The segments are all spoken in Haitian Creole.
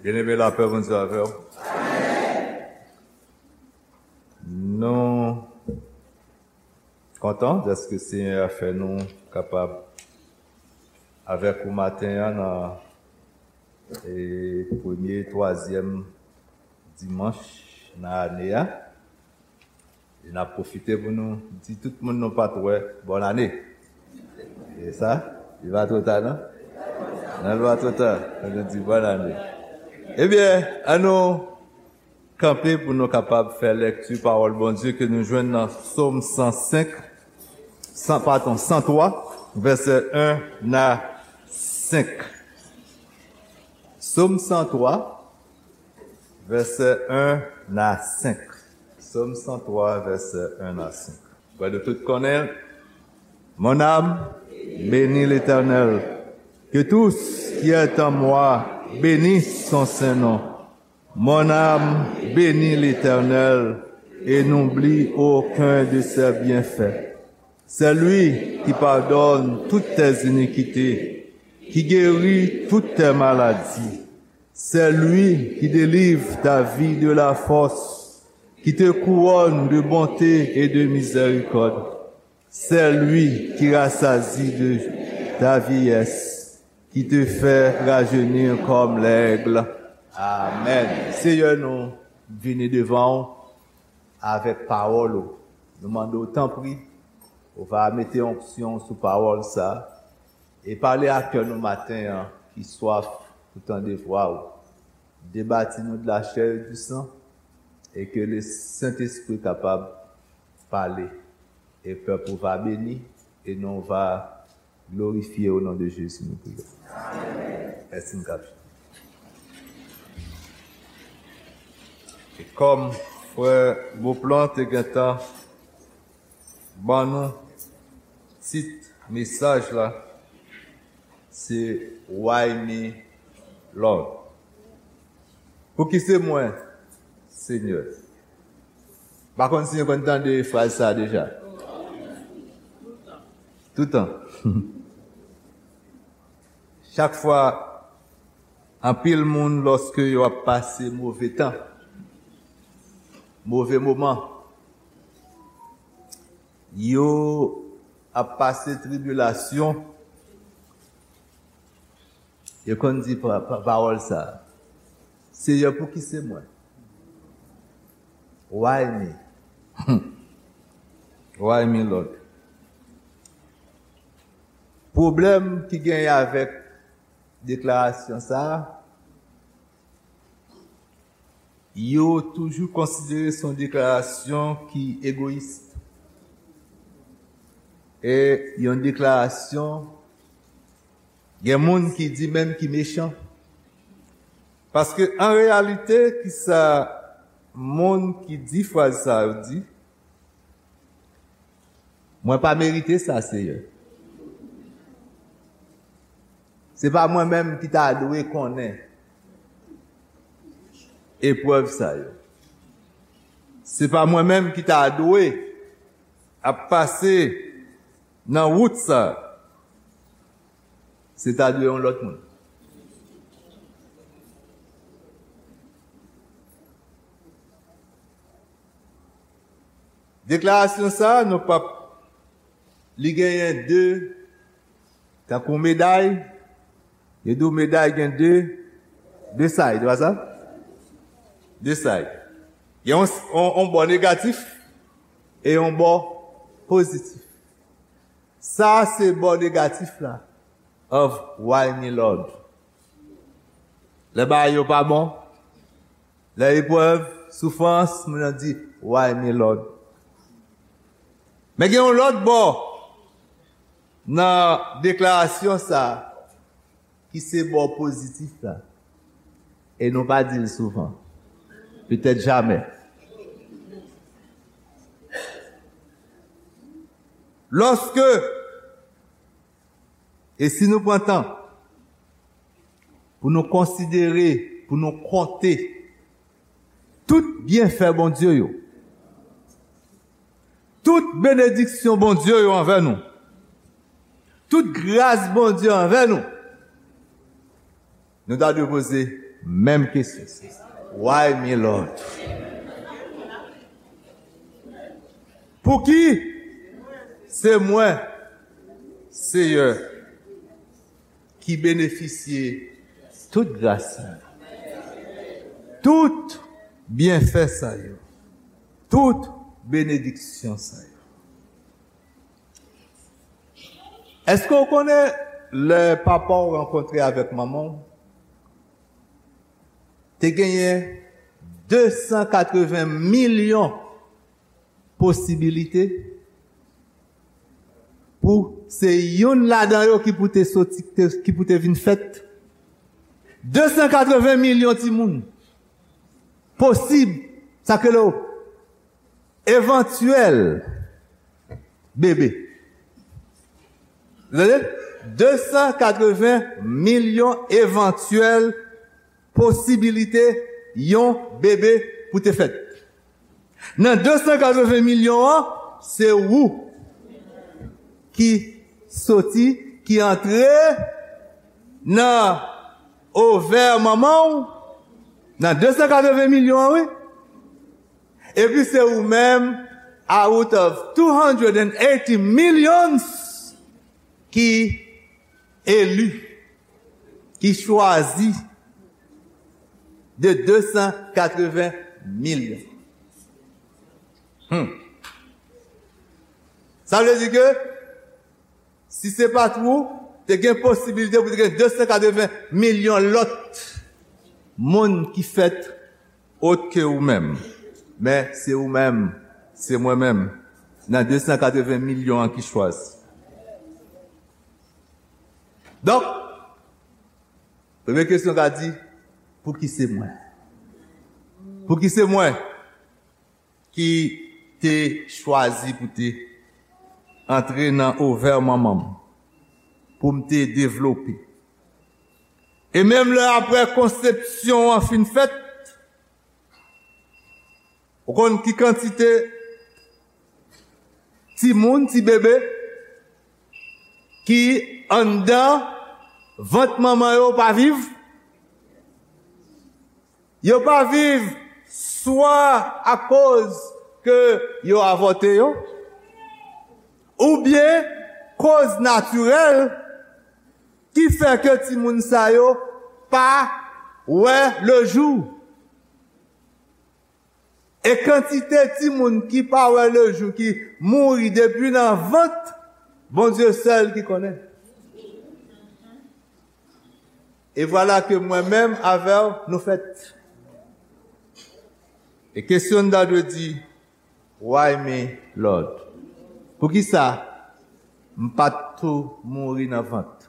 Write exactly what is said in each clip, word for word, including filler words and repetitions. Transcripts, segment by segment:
Byeneme, lapè Bondye avè w. Nou kontan dèske Senyè a fè nou kapab avèk ou maten an nan, e, premye, twazyèm dimanch nan ane a. E n ap pwofite pou nou di tout moun nou pa t wè, bòn ane. E sa, li pa twò ta, non? Non, li pa twò ta. Fò nou di bòn ane. Ebyen, ann nou kanpe pou nou kapab fè lèkti pawòl Bondye ke nou jwenn nan Sòm san senk, san, padon, san twa, vèsè en a senk. Sòm san twa, vèsè en a senk. Sòm san twa, vèsè en a senk. Kwè nou tout konnen. Mon âme, bénis l'Éternel. Que tout ce qui est en moi bénisse son saint nom. Mon âme, bénis l'Éternel et n'oublie aucun de ses bienfaits. C'est lui qui pardonne toutes tes iniquités, qui guérit toutes tes maladies. C'est lui qui délivre ta vie de la fosse, qui te couronne de bonté et de miséricorde. C'est lui qui rassasie de ta vieillesse, qui te fait rajeunir comme l'aigle. Amen. Senyè, nou vini devan w avèk pawòl ou. Nou mande w, tanpri, ou va mete onksyon sou pawòl sa a e pale a kè nou maten an ki swaf pou tande vwa w. Debati nou de la chair et du sang e ke le Sentespri kapab pale. E pèp ou va beni e non va glorifye o non de Jezi nou priye. Mèsi, m kap. E kòm frè Beauplan te gentan ban nou tit mesaj la, se Why me, Lord? Pouki se mwen, Senyè? Pa konn si nou konn tande fraz sa a deja. Toutan. Chak fwa, anpil moun, lòske yo ap pase move tan, move moman, yo ap pase tribilasyon, yo konn di pa, pa, pawòl sa a, Senyè, pouki se mwen? Why me? Why me, Lord? Pwoblèm ki genyen avèk deklarasyon sa a, yo toujou konsidere se yon deklarasyon ki egoyis. E yon deklarasyon, gen moun ki di menm ki mechan. Paske an reyalite, ki sa moun ki di fraz sa yo di? Mwen pa merite sa, Seyè. Se pa mwen menm ki ta dwe konnen eprèv sa yo. Se pa mwen menm ki ta dwe ap pase nan wout sa. Se ta dwe yon lòt moun. Deklarasyon sa, nou p ap, li genyen de, tankou meday, yo di w meday gen de, de side, se pa sa? De side. Gen yon, yon, yon bò negatif e yon bò pozitif. Sa se bò negatif la of Why me, Lord. Lè bagay yo pa bon, lè eprèv, soufrans, moun nan di, Why me, Lord? Men gen yon lòt bò nan deklarasyon sa a ki se bò pozitif la. E nou pa di l souvan. Petèt jamè. Lòske, e si nou pran tan pou nou konsidere, pou nou konte tout byenfè Bondye yo, tout benediksyon Bondye yo anvè nou, tout gras Bondye anvè nou, nou ta dwe poze Menm kesyon. Why me, Lord? Pouki se mwen, Seyè, ki benefisye tout gras sa yo, tout byenfè sa yo, tout benediksyon sa yo? Èske w konnen lè papa w rankontre avèk manman w, te genyen de san katreven milyon posibilite pou se youn ladan yo ki pou te soti, te- ki pou te vin fèt? De san katreven milyon timoun posib, sa k rele w evantyèl bebe. Tande? De san katreven milyon evantyèl posibilite yon bebe pou te fèt. Nan de san katreven milyon an, se ou ki soti, ki antre nan ovè manman w, nan de san katreven milyon an, wi. Epi se ou menm, out of two hundred and eighty millions, ki eli, ki chwazi de de san katreven milyon. Hmm. Sa vle di ke si se pa t ou, te gen posibilite pou te gen de san katreven milyon lòt moun ki fèt ot ke ou menm. Men se ou menm, se mwen menm, nan de san katreven milyon an ki chwazi. Donk, premye kesyon ka di, pouki se mwen? Pouki se mwen ki te chwazi pou te antre nan ovè manman m, pou m te devlope? E menm lè apre konsepsyon an fin fèt, ou konn ki kantite timoun, ti bebe, ki anndan vant manman yo pa viv? Yo pa viv swa akoz ke yo avòte yo, oubyen koz natirèl ki fè ke timoun sa yo pa wè lejou. E kantite timoun ki pa wè lejou, ki mouri depi nan vant, Bondye sèl ki konnen. E vwala ke mwen menm avè w, nou fèt. E kesyon n ta dwe di, why me, Lord? Poukisa m pa t tou mouri nan vant?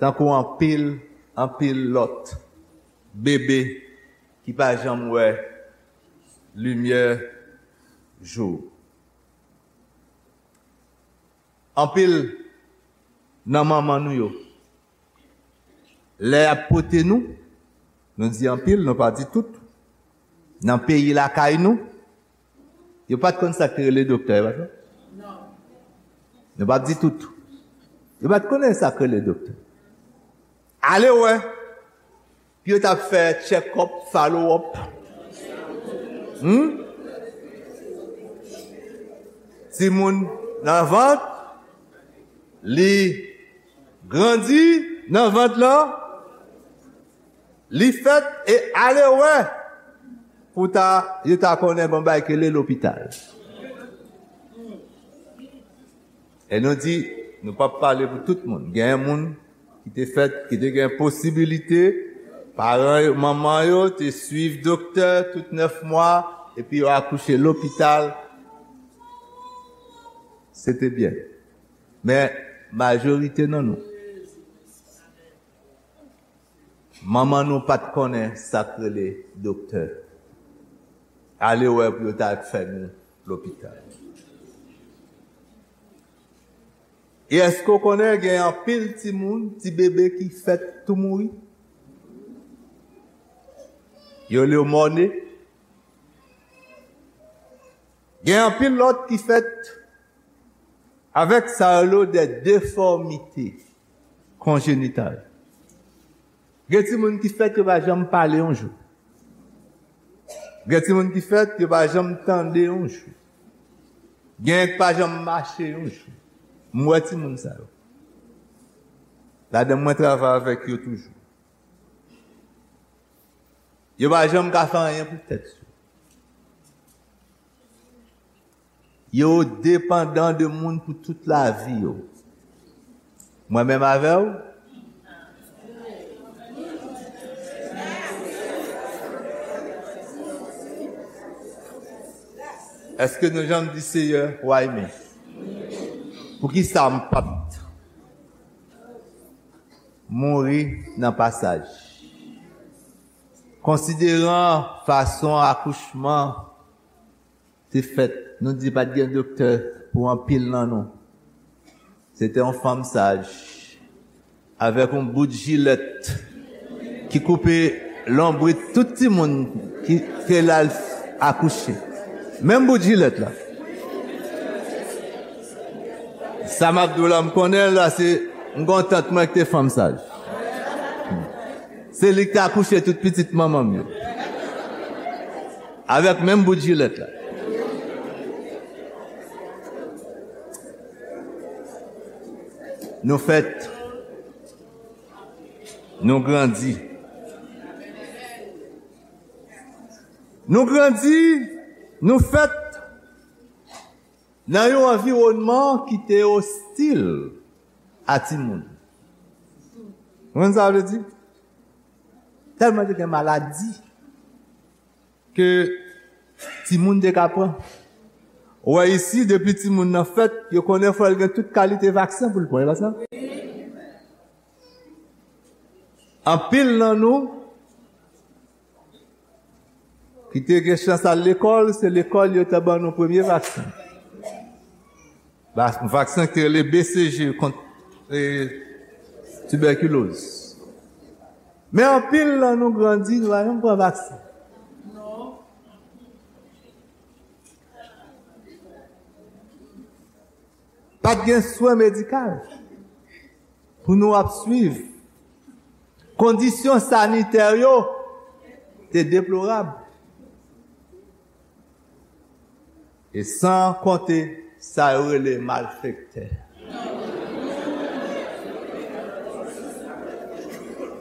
Tankou anpil, anpil lòt bebe ki pa janm wè limyè jou. Anpil nan manman nou yo, lè y ap pote nou, nou di anpil, nou pa di tout. Nan peyi lakay nou, yo pa t konn sa k te rele doktè, yo pa t konn? Nou p ap di tout. Yo pa t konnen sa k rele doktè. Ale wè. Pou yo t ap fè check up, follow up. Hmm? Timoun nan vant, li grandi nan vant lan, li fèt e ale wè pou ta, yo ta konnen gon bagay ki rele lopital. E nou di, nou p ap pale pou tout moun. Gen moun ki te fèt, ki te gen posibilite, paran yo, manman yo te swiv doktè tout nèf mwa, epi yo akouche lopital. Se te byen. Men, majorite nan nou, manman nou pa t konnen sa k rele doktè. Ale wè pou yo ta fè nou lopital. E èske w konnen gen anpil timoun, ti bebe ki fèt tou mouri? Yo rele yo mòne. Gen anpil lòt ki fèt avèk sa yo rele de defòmite konjenital. Gen timoun ki fèt yo pa janm pale yon jou. Gen timoun ki fèt yo pa janm tande yon jou. Gen ki pa janm mache yon jou. M wè timoun sa yo. Ladan mwen travay avèk yo toujou. Yo pa janm ka fè anyen pou tèt yo. Yo depandan de moun pou tout lavi yo. Mwen menm avè w? Èske nou janm di, Seyè, why me? Poukisa m p ap mouri nan pasaj? Konsideran fason akouchman te fèt, nou di pa t gen doktè pou anpil nan nou. Se te yon fanm saj, avèk yon bout jilèt ki koupe lonbrit tout timoun ki te la l akouche. Menm bout jilèt la. Sa m ap di w la, m konnen l la, se m gon tant mwen ki te fanm saj. Se li ki te akouche tout pitit manman m yo. Avèk menm bout jilèt la. Nou fèt. Nou grandi. Nou grandi, nou fèt nan yon anviwònman ki te ostil a timoun. Ou konn sa vle di? Tèlman te gen maladi ke timoun te ka pran. Ou wè isi, depi timoun nan fèt, yo konnen fò l gen tout kalite vaksen pou l pran, e pa sa? Anpil nan nou ki te gen chans al lekòl, se lekòl yo te ban nou premye vaksen. Va-, vaksen ki te rele B C G kont, e, tibèkiloz. Men anpil nan nou grandi, nou pa janm pran vaksen. Pa t gen swen medikal pou nou ap swiv. Kondisyon sanitè yo te deplorab. E san konte sa yo rele malfektè.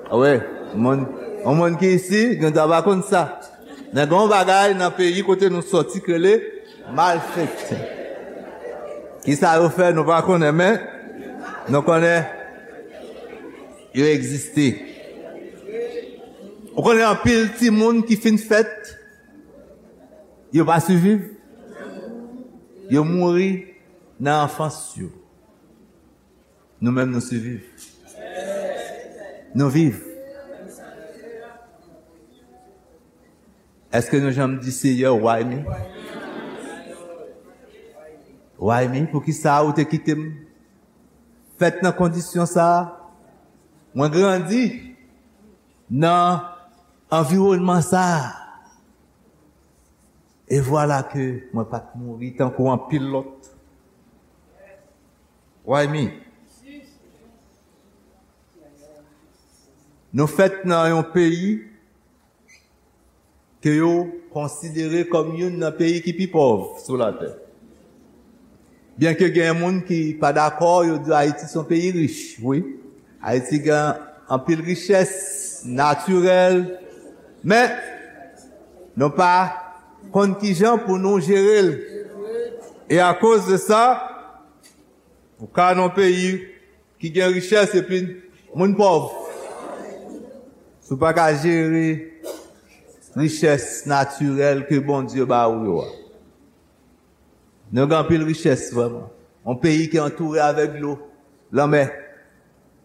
Wi, moun, yon moun ki isi, gen dwa pa konn sa. Men gen yon bagay nan peyi kote nou soti ki rele malfektè. Kisa yo fè, nou pa konnen, men nou konnen yo egziste. Ou konnen anpil timoun ki fin fèt, yo pa siviv. Yo mouri nan anfans yo. Nou menm, nou siviv. Nou viv. Èske nou janm di, Seyè, why me? Why me? Poukisa ou te kite m fèt nan kondisyon sa a? Mwen grandi nan anviwònman sa a. E vwala ke mwen pa t mouri tankou anpil lòt. Why me? Nou fèt nan yon peyi ke yo konsidere kòm youn nan peyi ki pi pòv sou latè. Byenke gen moun ki pa dakò, yo di Ayiti se yon peyi rich, wi. Ayiti gen anpil richès natirèl, men nou pa konn kijan pou nou jere l. E akoz de sa, ou ka nan peyi ki gen richès epi moun pòv. Si w pa ka jere richès natirèl ke Bondye ba ou yo a. Nou gen anpil richès vrèman. Yon peyi ki antoure avèk dlo, lanmè.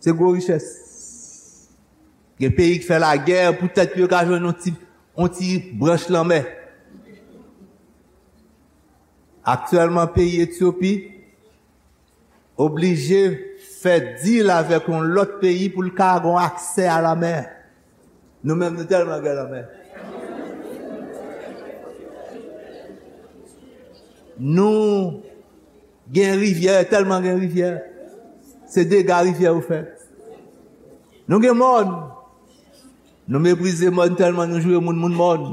Se gwo richès. Gen peyi ki fè lagè poutèt yo ka jwenn yon ti, yon ti branch lanmè. Aktyèlman, peyi Etyopi oblije fè dil avèk yon lòt peyi pou l ka gon aksè a lanmè. Nou menm, nou tèlman gen lanmè. Nou gen rivyè, tèlman gen rivyè. Se dega rivyè yo fè. Nou gen mòn. Nou meprize mòn tèlman nou joure moun, moun mòn.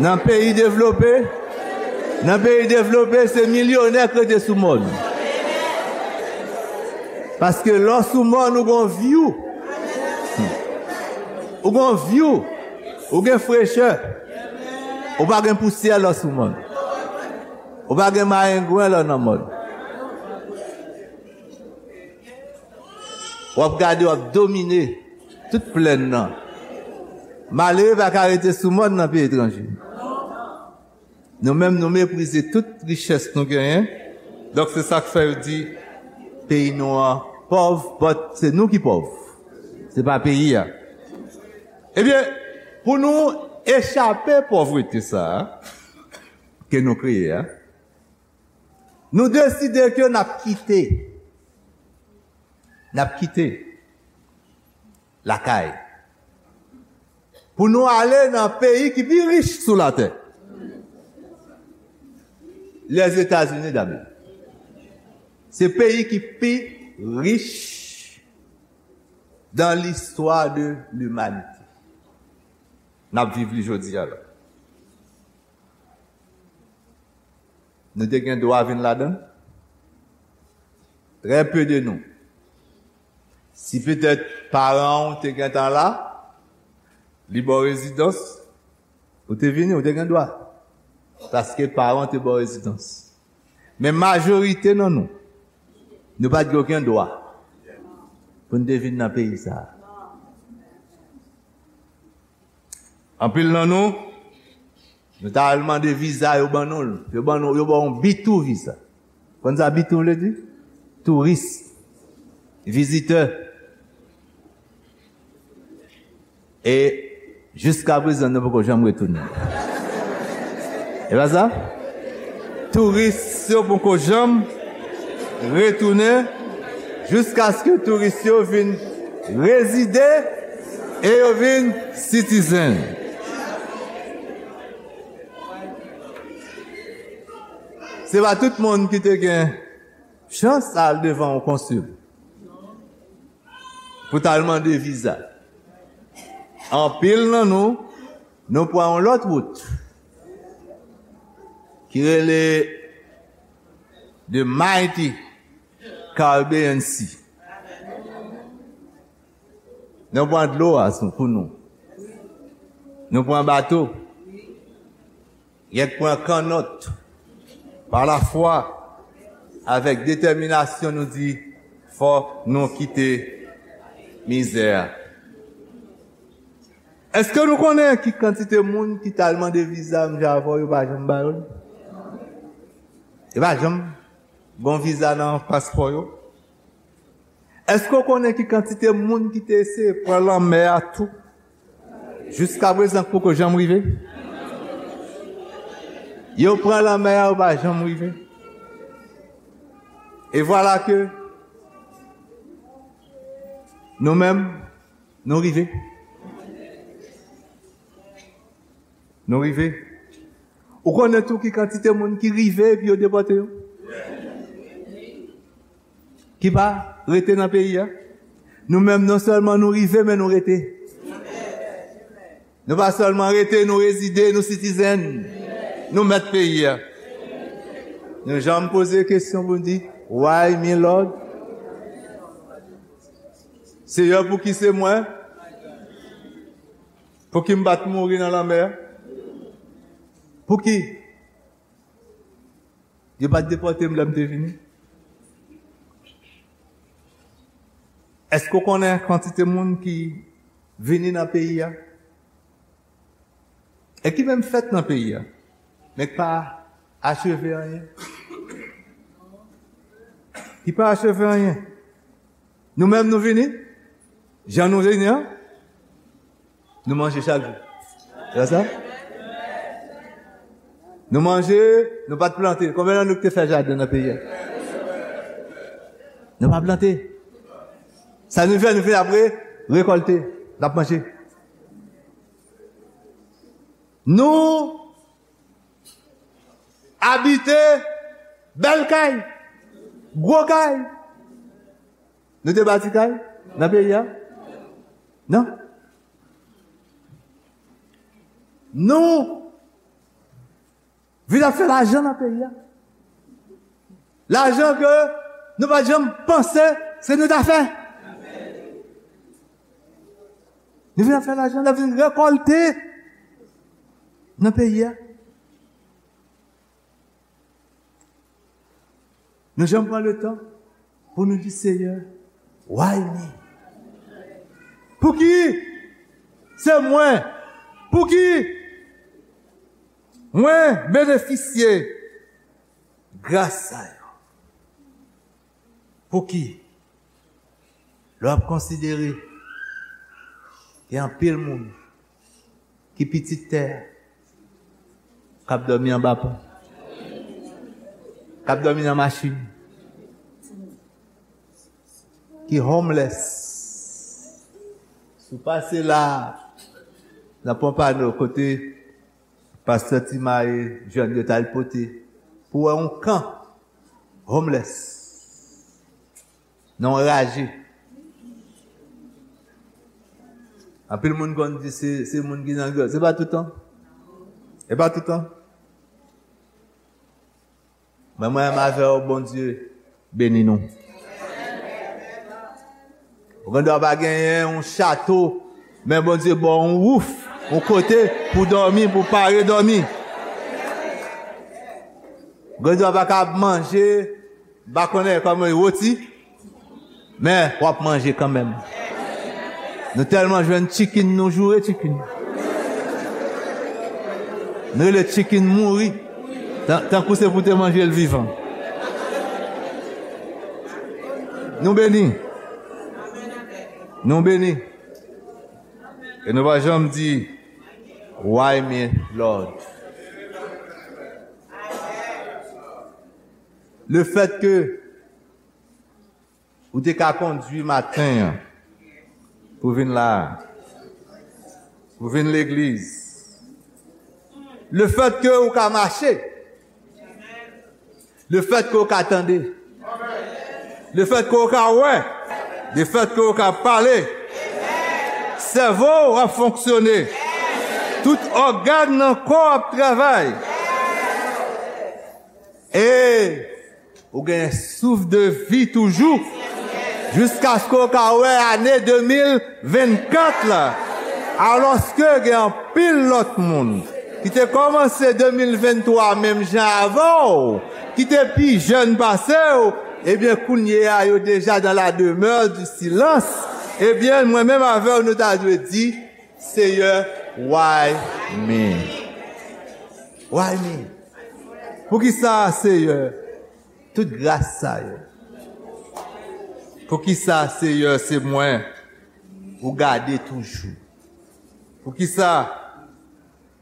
Nan peyi devlope, nan peyi devlope, se milyonè k rete sou mòn. Paske lè w sou mòn, ou gon vyou. Ou gon vyou. Ou gen frechè. Ou pa gen pousyè lè w sou mòn. Ou pa gen mayengwen lè w nan mòn. W ap gade, w ap domine tout plèn nan. Malere pa ka rete sou mòn nan peyi etranje. Nou menm, nou meprize tout richès nou genyen. Donk, se sa k fè yo di peyi nou an pòv, but se nou ki pòv. Se pa peyi a. Ebyen, pou nou echape pòvrete sa a ke nou kreye a, nou deside ke n ap kite, n ap kite lakay pou nou ale nan peyi ki pi rich sou latè, Lèzetazini d'Amerik. Se peyi ki pi rich dans l'histoire de l'humanité. N ap viv li jodi a la. Nou te gen dwa vin ladan l? Trè pe de nou. Si petèt paran w te gentan la, li ba w rezidans, ou te vini, ou te gen dwa. Paske paran w te ba w rezidans. Men majorite nan nou, nou pa t gen okenn dwa pou n te vin nan peyi sa a. Anpil nan nou, nou ta al mande viza, yo ban nou l. Yo ban nou, yo ba w yon B two viza. Konn sa B two vle di? Touris, vizitè. E jiska prezan, nou poko janm retounen. E pa sa? Touris yo poko janm retounen jiskaske touris yo vin rezide e yo vin citizen. Se pa tout moun ki te gen chans al devan yon konsil pou t al mande viza. Anpil nan nou, nou pran yon lòt wout ki rele the mighty Caribbean Sea. Nou pran dlo a sou, pou nou. Nou pran bato. Gen k pran kannòt. Pa lafwa, avèk detèminasyon, nou di, fò nou kite mizè a. Èske nou konnen ki kantite moun ki t al mande viza menm jan avè w, yo pa janm ba yo l? Yo pa janm gon viza nan paspò yo? Èske w konnen ki kantite moun ki te eseye pran lanmè a tou? Jiska prezan, k poko janm rive. Yo pran lanmè a, yo pa janm rive. E vwala ke nou menm, nou rive. Nou rive. Ou konnen tou ki kantite moun ki rive epi yo depòte yo? Ki pa rete nan peyi a? Nou menm, non sèlman nou rive, men nou rete. Nou pa sèlman rete, nou rezide, nou citizen. Nou mèt peyi a. Nou janm poze kesyon pou n di, "Why me, Lord?" Seyè, pouki se mwen? Pouki m pa t mouri nan lanmè a? Pouki yo pa t depòte m lè m te vini? Èske w konnen kantite moun ki vini nan peyi a e ki menm fèt nan peyi a, men ki pa acheve anyen? Ki pa acheve anyen. Nou menm, nou vini, jan nou vini an, nou manje chak jou. Se sa? Nou manje, nou pa t plante. Konbyen nan nou ki te fè jaden nan peyi a? Nou pa plante. Sa nou fè, nou fè apre, rekòlte, n ap manje. Nou abite bèl kay, gwo kay. Nou te bati kay nan peyi a? Non. Nou vin ap fè lajan nan peyi a. Lajan ke nou pa t janm panse se nou ta fè. Nou vin ap fè lajan, nou vin rekòlte nan peyi a. Nou janm pran le tan pou nou di, Seyè, why me? Pouki se mwen? Pouki mwen benefisye gras sa yo? Pouki? Lè w ap konsidere, gen anpil moun ki pitit tè a, k ap dòmi anba pon, k ap dòmi nan machin, ki homeless. Si w pase la, nan Pompano, kote pastè Timaye, jèn yo t al pote pou wè yon kan homeless, nan yon raje. Anpil moun konn di se, se moun ki nan grèv. Se pa toutan. Se pa toutan. Men mwen menm avè w, Bondye beni nou. Ou gen dwa pa genyen yon chato, men Bondye ba w yon wouf, yon kote pou dòmi, pou pare dòmi. Ou gen dwa pa ka manje, m pa konnen kòman, roti, men w ap manje kanmenm. Nou tèlman jwenn chicken, nou joure chicken. Nou rele chicken mouri. Tan-, tankou se pou te manje l vivan. Nou beni. Nou beni. E nou pa janm di, why me, Lord? Le fèt ke ou te ka kondwi maten an pou vin la, pou vin legliz. Le fèt ke ou ka mache, le fèt ke ou ka tande, le fèt ke ou ka wè, le fèt ke ou ka pale, sèvo w ap fonksyone, tout ògàn nan kò w ap travay. E ou gen souf de vi toujou, jiskaske w ka wè ane de mil vennkat la. Alòske gen anpil lòt moun ki te kòmanse de mil venntwa menm jan avè w, ki te pi jèn pase w, ebyen, kounye a, yo deja dans la demeure du silence. Ebyen, mwen menm avè w, nou ta dwe di, Seyè, why me? Why me? Poukisa, Seyè, tout gras sa yo? Poukisa, Seyè, se mwen ou gade toujou? Poukisa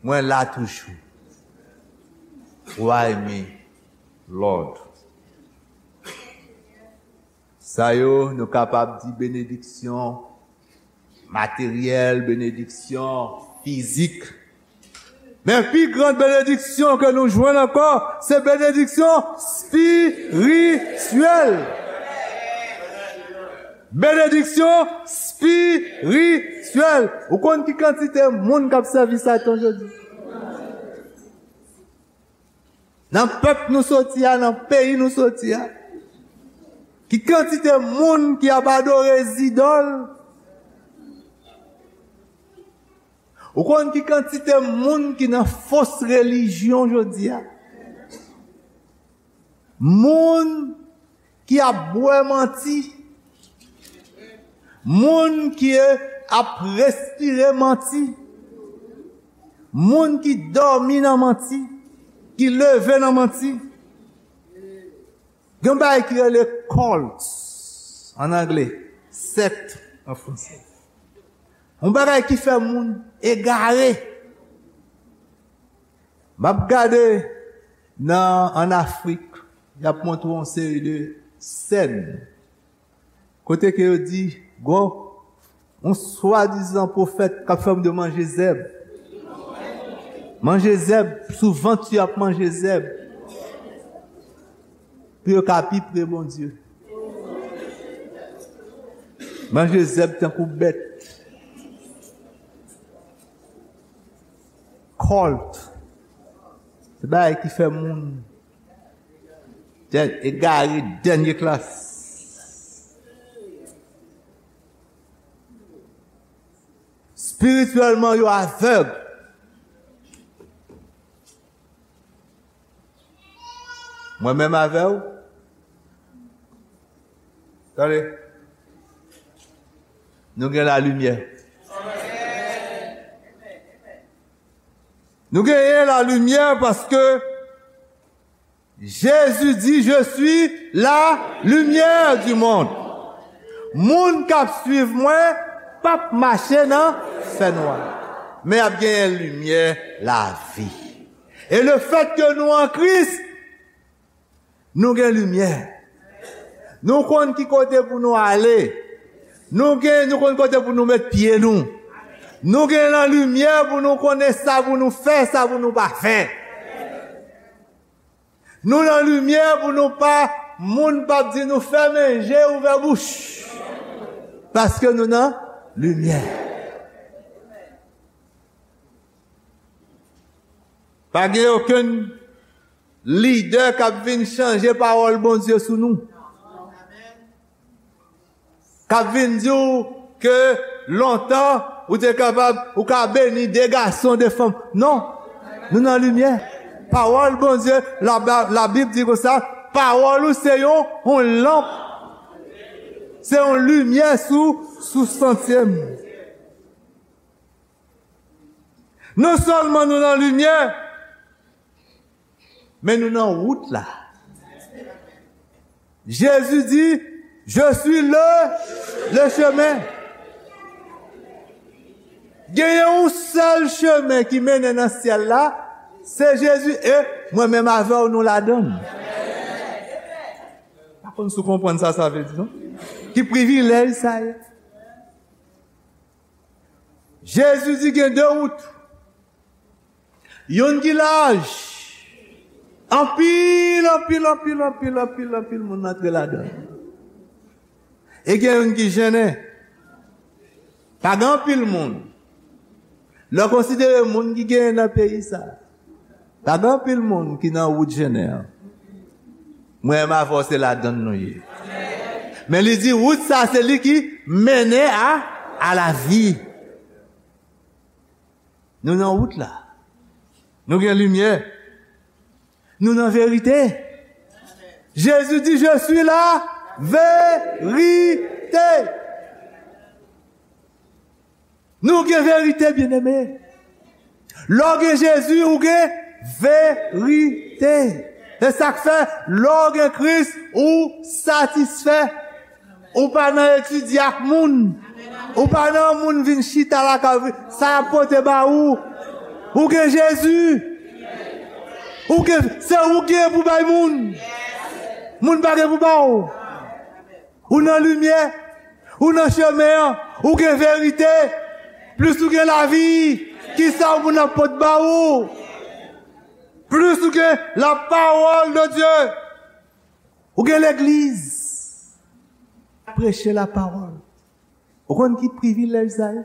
mwen la toujou? Why me, Lord? Sa yo, nou kapab di benediksyon materyèl, benediksyon fizik. Men pi gran benediksyon ke nou jwenn ankò, se benediksyon espirityèl. Benediksyon espirityèl. Ou konn ki kantite moun k ap sèvi Satan jodi? Nan pèp nou soti a, nan peyi nou soti a, ki kantite moun ki ap adore zidòl? Ou konn ki kantite moun ki nan fos relijyon jodi a? Moun ki ap bwè manti, moun ki ap respire manti, moun ki dòmi nan manti, ki leve nan manti. Gen yon bagay ki rele cult an angle, sèkt an franse. Yon bagay ki fè moun egare. M ap gade nan, ann Afrik, y ap montre yon seri de sèn kote ke yo di, gon yon swadizan pwofèt k ap fè moun yo manje zèb. Manje zèb, sou vant yo ap manje zèb. Pou yo ka pi pre Bondye. Manje zèb tankou bèt. Cult. Se bagay ki fè moun dè- egare dènye klas. Espirityèlman, yo avèg. Mwen menm avè w. Tande. Nou gen lalimyè. Nou genyen lalimyè paske Jezi di, "Je suis la lumière du monde." Moun k ap swiv mwen p ap mache nan fènwa, men y ap genyen limyè lavi. E lefètke nou an Kris, nou gen limyè. Nou konn ki kote pou nou ale. Nou gen, nou konn kote pou nou met pye nou. Nou gen nan limyè pou nou konnen sa pou nou fè, sa pou nou pa fè. Nou nan limyè pou nou pa, moun p ap di nou fèmen je, ouvè bouch. Paske nou nan limyè. Pa gen okenn lidè k ap vin chanje pawòl Bondye sou nou. K ap vin di w ke lontan ou te kapab, ou ka beni de gason, de fanm. Non. Nou nan limyè. Pawòl Bondye, la, Labib di konsa, pawòl ou se yon, yon lanp. Se yon limyè sou, sou santye m. Non sèlman nou nan limyè, men nou nan wout la. Jezi di, "Je suis le, le chemin." Genyen yon sèl chemen ki mennen nan syèl la, se Jezi, e mwen menm avè w nou ladan l. Pa konn si w konprann sa sa vle di, non? Ki privilèj sa ye? Jezi di gen de wout. Youn ki laj. Anpil, anpil, anpil, anpil, anpil, anpil moun antre ladan l. E gen youn ki jennen. Pa gen anpil moun. Lè w konsidere moun ki genyen nan peyi sa, pa gen anpil moun ki nan wout jennen an. Mwen menm avè w se ladan l nou ye. Men li di wout sa se li ki mennen a, a lavi. Nou nan wout la. Nou gen limyè. Nou nan verite. Jezi di, "Je suis la vérité." Nou gen verite, byeneme. Lè w gen Jezi, ou gen verite. Se sa k fè, lè w gen Kris, ou satisfè. Ou pa nan etidye ak moun. Ou pa nan moun vin chita lakay ou, sa y ap pote ba ou. Ou gen Jezi. Ou gen, se ou gen pou bay moun. Moun pa gen pou ba ou. Ou nan limyè. Ou nan chemen an. Ou gen verite. Plis ou gen lavi, kisa moun ap pot ba ou? Plis ou gen la parole de Dieu. Ou gen legliz. Preche la parole. Ou konn ki privilèj sa ye?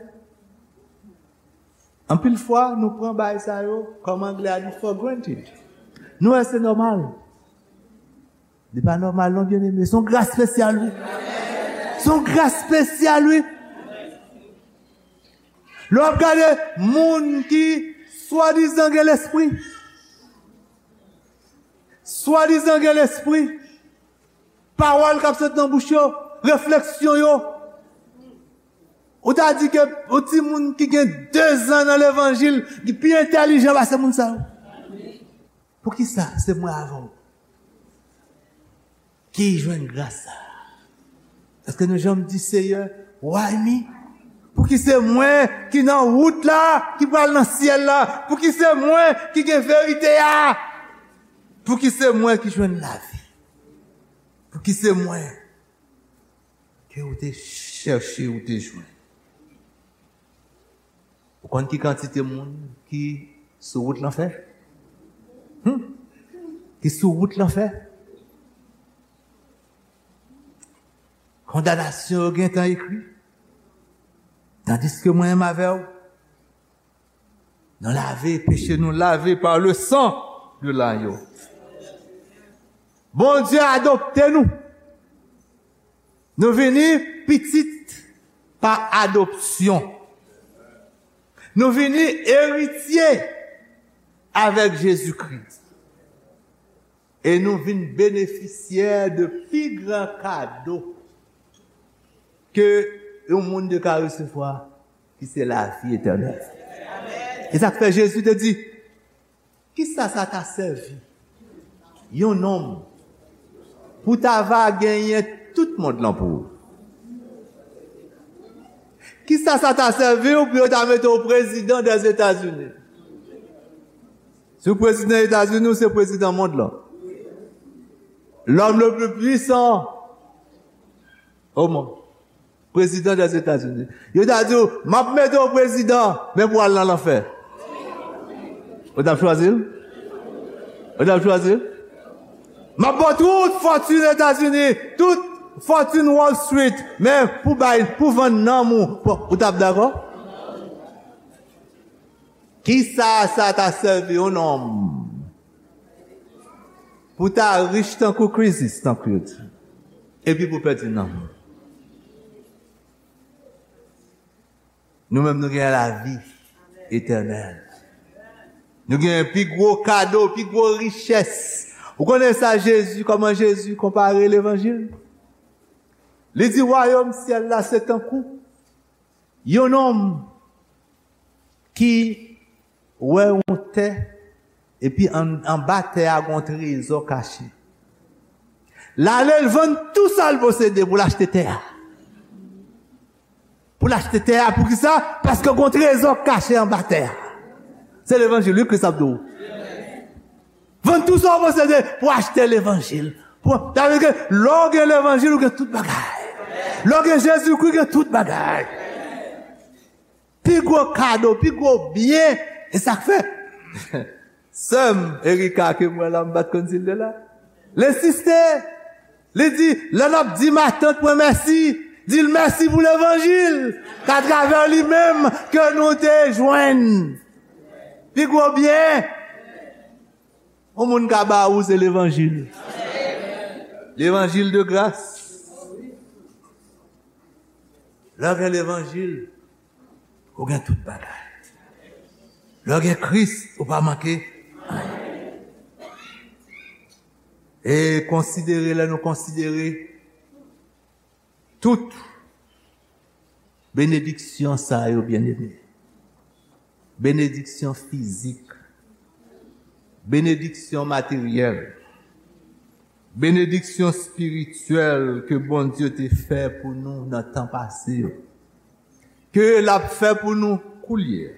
Anpil fwa, nou pran bagay sa yo, kòm anglè a di, for granted. Nou wè se nòmal. Li pa nòmal non, byeneme. Se yon gras espesyal, wi. Se yon gras espesyal, wi. Lè w ap gade moun ki swadizan gen lespri, swadizan gen lespri, pawòl k ap sot nan bouch yo, refleksyon yo. Ou ta di ke yon timoun ki gen de zan nan levanjil, li pi entèlijan pase moun sa yo. Poukisa se mwen avè w ki jwenn gras sa a? Èske nou janm di, "Seyè, why me?" Pouki se mwen ki nan wout la, ki pral nan syèl la? Pouki se mwen ki gen verite a? Pouki se mwen ki jwenn lavi? Pouki se mwen ke ou te chèche, ou te jwenn? Ou konn ki kantite moun ki sou wout lanfè? Hmm? Ki sou wout lanfè? Kondanasyon yo gentan ekri. Tandis ke mwen menm avè w, nou lave, peche nou lave par le sang de l'agneau. Bondye adopte nou. Nou vini pitit pa adopsyon. Nou vini eritye avèk Jezikri. E nou vin benefisyè de pi gran kado ke yon moun te ka resevwa, ki se lavi etènèl. E sa k fè Jezi te di, kisa sa ta sèvi yon nonm pou ta va genyen tout mond lan pou ou? Kisa sa ta sèvi w pou yo ta mete w prezidan dèzetazini? Si w prezidan Etazini, ou se prezidan mond lan. L'homme le plus puissant au monde. Prezidan dèzetazini. Yo ta di w, m ap mete w prezidan, men pou w al nan lanfè. Ou t ap chwazi l? Ou t ap chwazi l? M ap ba w tout fòtin Etazini, tout fòtin Wall Street, men pou bay, pou vann nanm ou, pou, ou t ap dakò? Kisa sa ta sèvi yon nonm pou ta rich tankou Krezis, tankou yo di, epi pou pèdi nanm? Nou menm, nou gen lavi etènèl. Nou gen pi gwo kado, pi gwo richès. Ou konnen sa Jezi, kòman Jezi konpare levanjil? Li di, wayòm syèl la se tankou yon nonm ki wè yon tè, epi an, anba tè a gen yon trezò kache. L ale, l vann tou sa l posede pou l achte tè a. Pou l achte tè a, poukisa? Paske gen yon trezò kache anba tè a. Se levanjil, wi, Kris ap di w. Vann tou sa w posede pou achte levanjil. Pou, sa vle di ke lè w gen levanjil, ou gen tout bagay. Lè w gen Jezikri, ou gen tout bagay. Pi gwo kado, pi gwo byen. E sa k fè sè m Erika ke m wè la, m pa t konn si l te la. L ensiste. Li di, lè n ap di matant mwen mèsi, di l mèsi pou levanjil, k atravè li menm ke nou te jwenn pi gwo byen yon moun ka ba ou, se levanjil. Levanjil de gras. Lè w gen levanjil, ou gen tout bagay. Lè w gen Kris, ou pa manke anyen. E konsidere, lè nou konsidere tout benediksyon sa yo, byeneme, benediksyon fizik, benediksyon materyèl, benediksyon espirityèl ke Bondye te fè pou nou nan tan pase yo, ke l ap fè pou nou koulye a,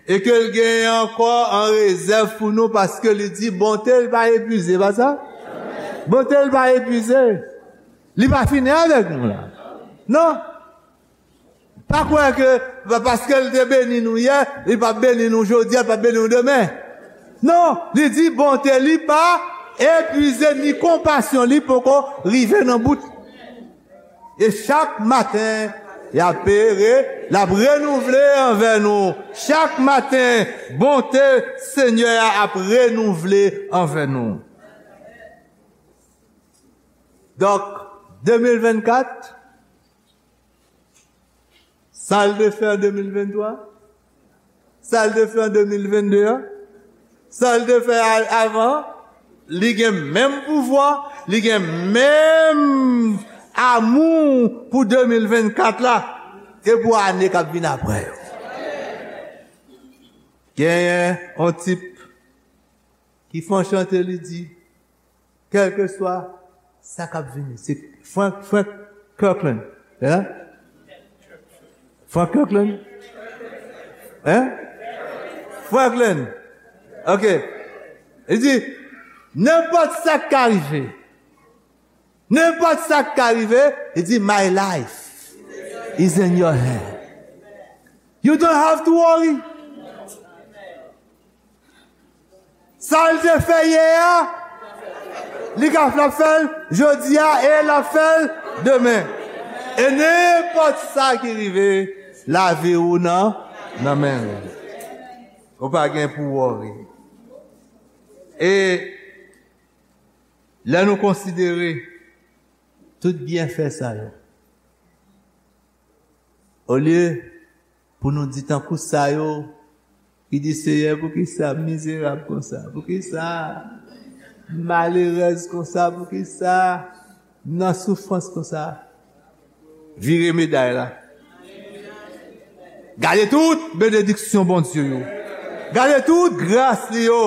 e ke l genyen ankò an rezèv pou nou, paske li di bonte l pa epuize, pa sa? Bonte l pa epuize. Li pa fini avèk nou la. Non. Pa kwè ke pa-, paske l te beni nou yè, li p ap beni nou jodi a, li p ap beni nou demen. Non, li di bonte li pa epuize, ni konpasyon li poko rive nan bout. E chak maten, y ap re-, l ap renouvle anvè nou. Chak maten, bonte Senyè a ap renouvle anvè nou. Donk, de mil vennkat, sa l te fè an de mil venntwa, sa l te fè an de mil vennde a, sa l te fè a-, avan, li gen menm pouvwa, li gen menm amou pou de mil vennkat la, e pou ane k ap vin apre yo. Genyen yon tip ki fè yon chante, li di, kèlkeswa sa k ap vini. Se Frank, Frank Kirkland. Hein? Frank Kirkland? Hein? Franklin. Ok. Li di, nenpòt sa k ka rive, nenpòt sa k ka rive, li di, my life is in your hand. You don't have to worry. Sa l te fè yè a, li ka, l ap fè l jodi a e l ap fè l demen. E nenpòt sa ki rive, Lavi ou nan, nan men l. Ou pa gen pou worry. E lè nou konsidere tout byenfè sa yo, olye pou nou di tankou sa yo ki di, Seyè, poukisa m mizerab konsa? Poukisa m malerèz konsa? Poukisa m nan soufrans konsa? Vire meday la. Gade tout benediksyon Bondye yo. Gade tout gras li yo.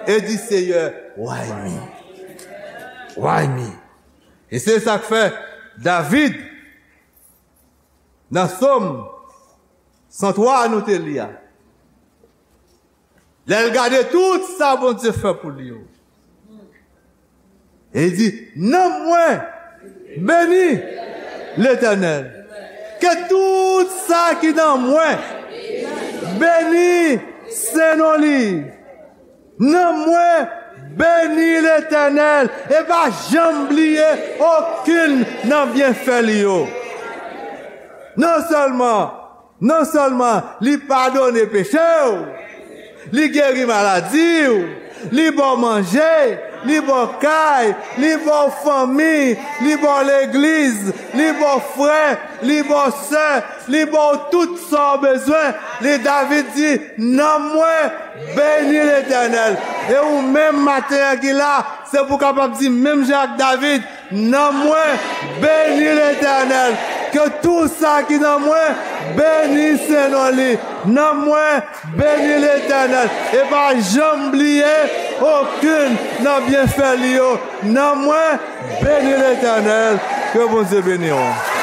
E di, Seyè, why me? Why me? E se sa k fè David, nan Sòm san twa a nou te li a, lè l gade tout sa Bondye fè pou li yo, e li di, nanm mwen beni Letènèl. Ke tout sa ki nan mwen beni sen non li. Nanm mwen beni Letènèl e pa janm bliye okenn nan byenfè li yo. Non sèlman, non sèlman li padone peche w, li geri maladi w, li ba w manje, li ba w kay, li ba w fanmi, li ba w legliz, li ba w frè, li ba w sè, li ba w tout sa w bezwen. Li, David di, nanm mwen beni Letènèl. E ou menm maten an ki la, se pou w kapab di menm jan ak David, nanm mwen beni Letènèl. Ke tou sa ki nan mwen beni sen non li. Nanm mwen beni Letènèl. E pa janm bliye okenn nan byenfè li yo. Nanm mwen beni Letènèl. Ke Bondye beni w.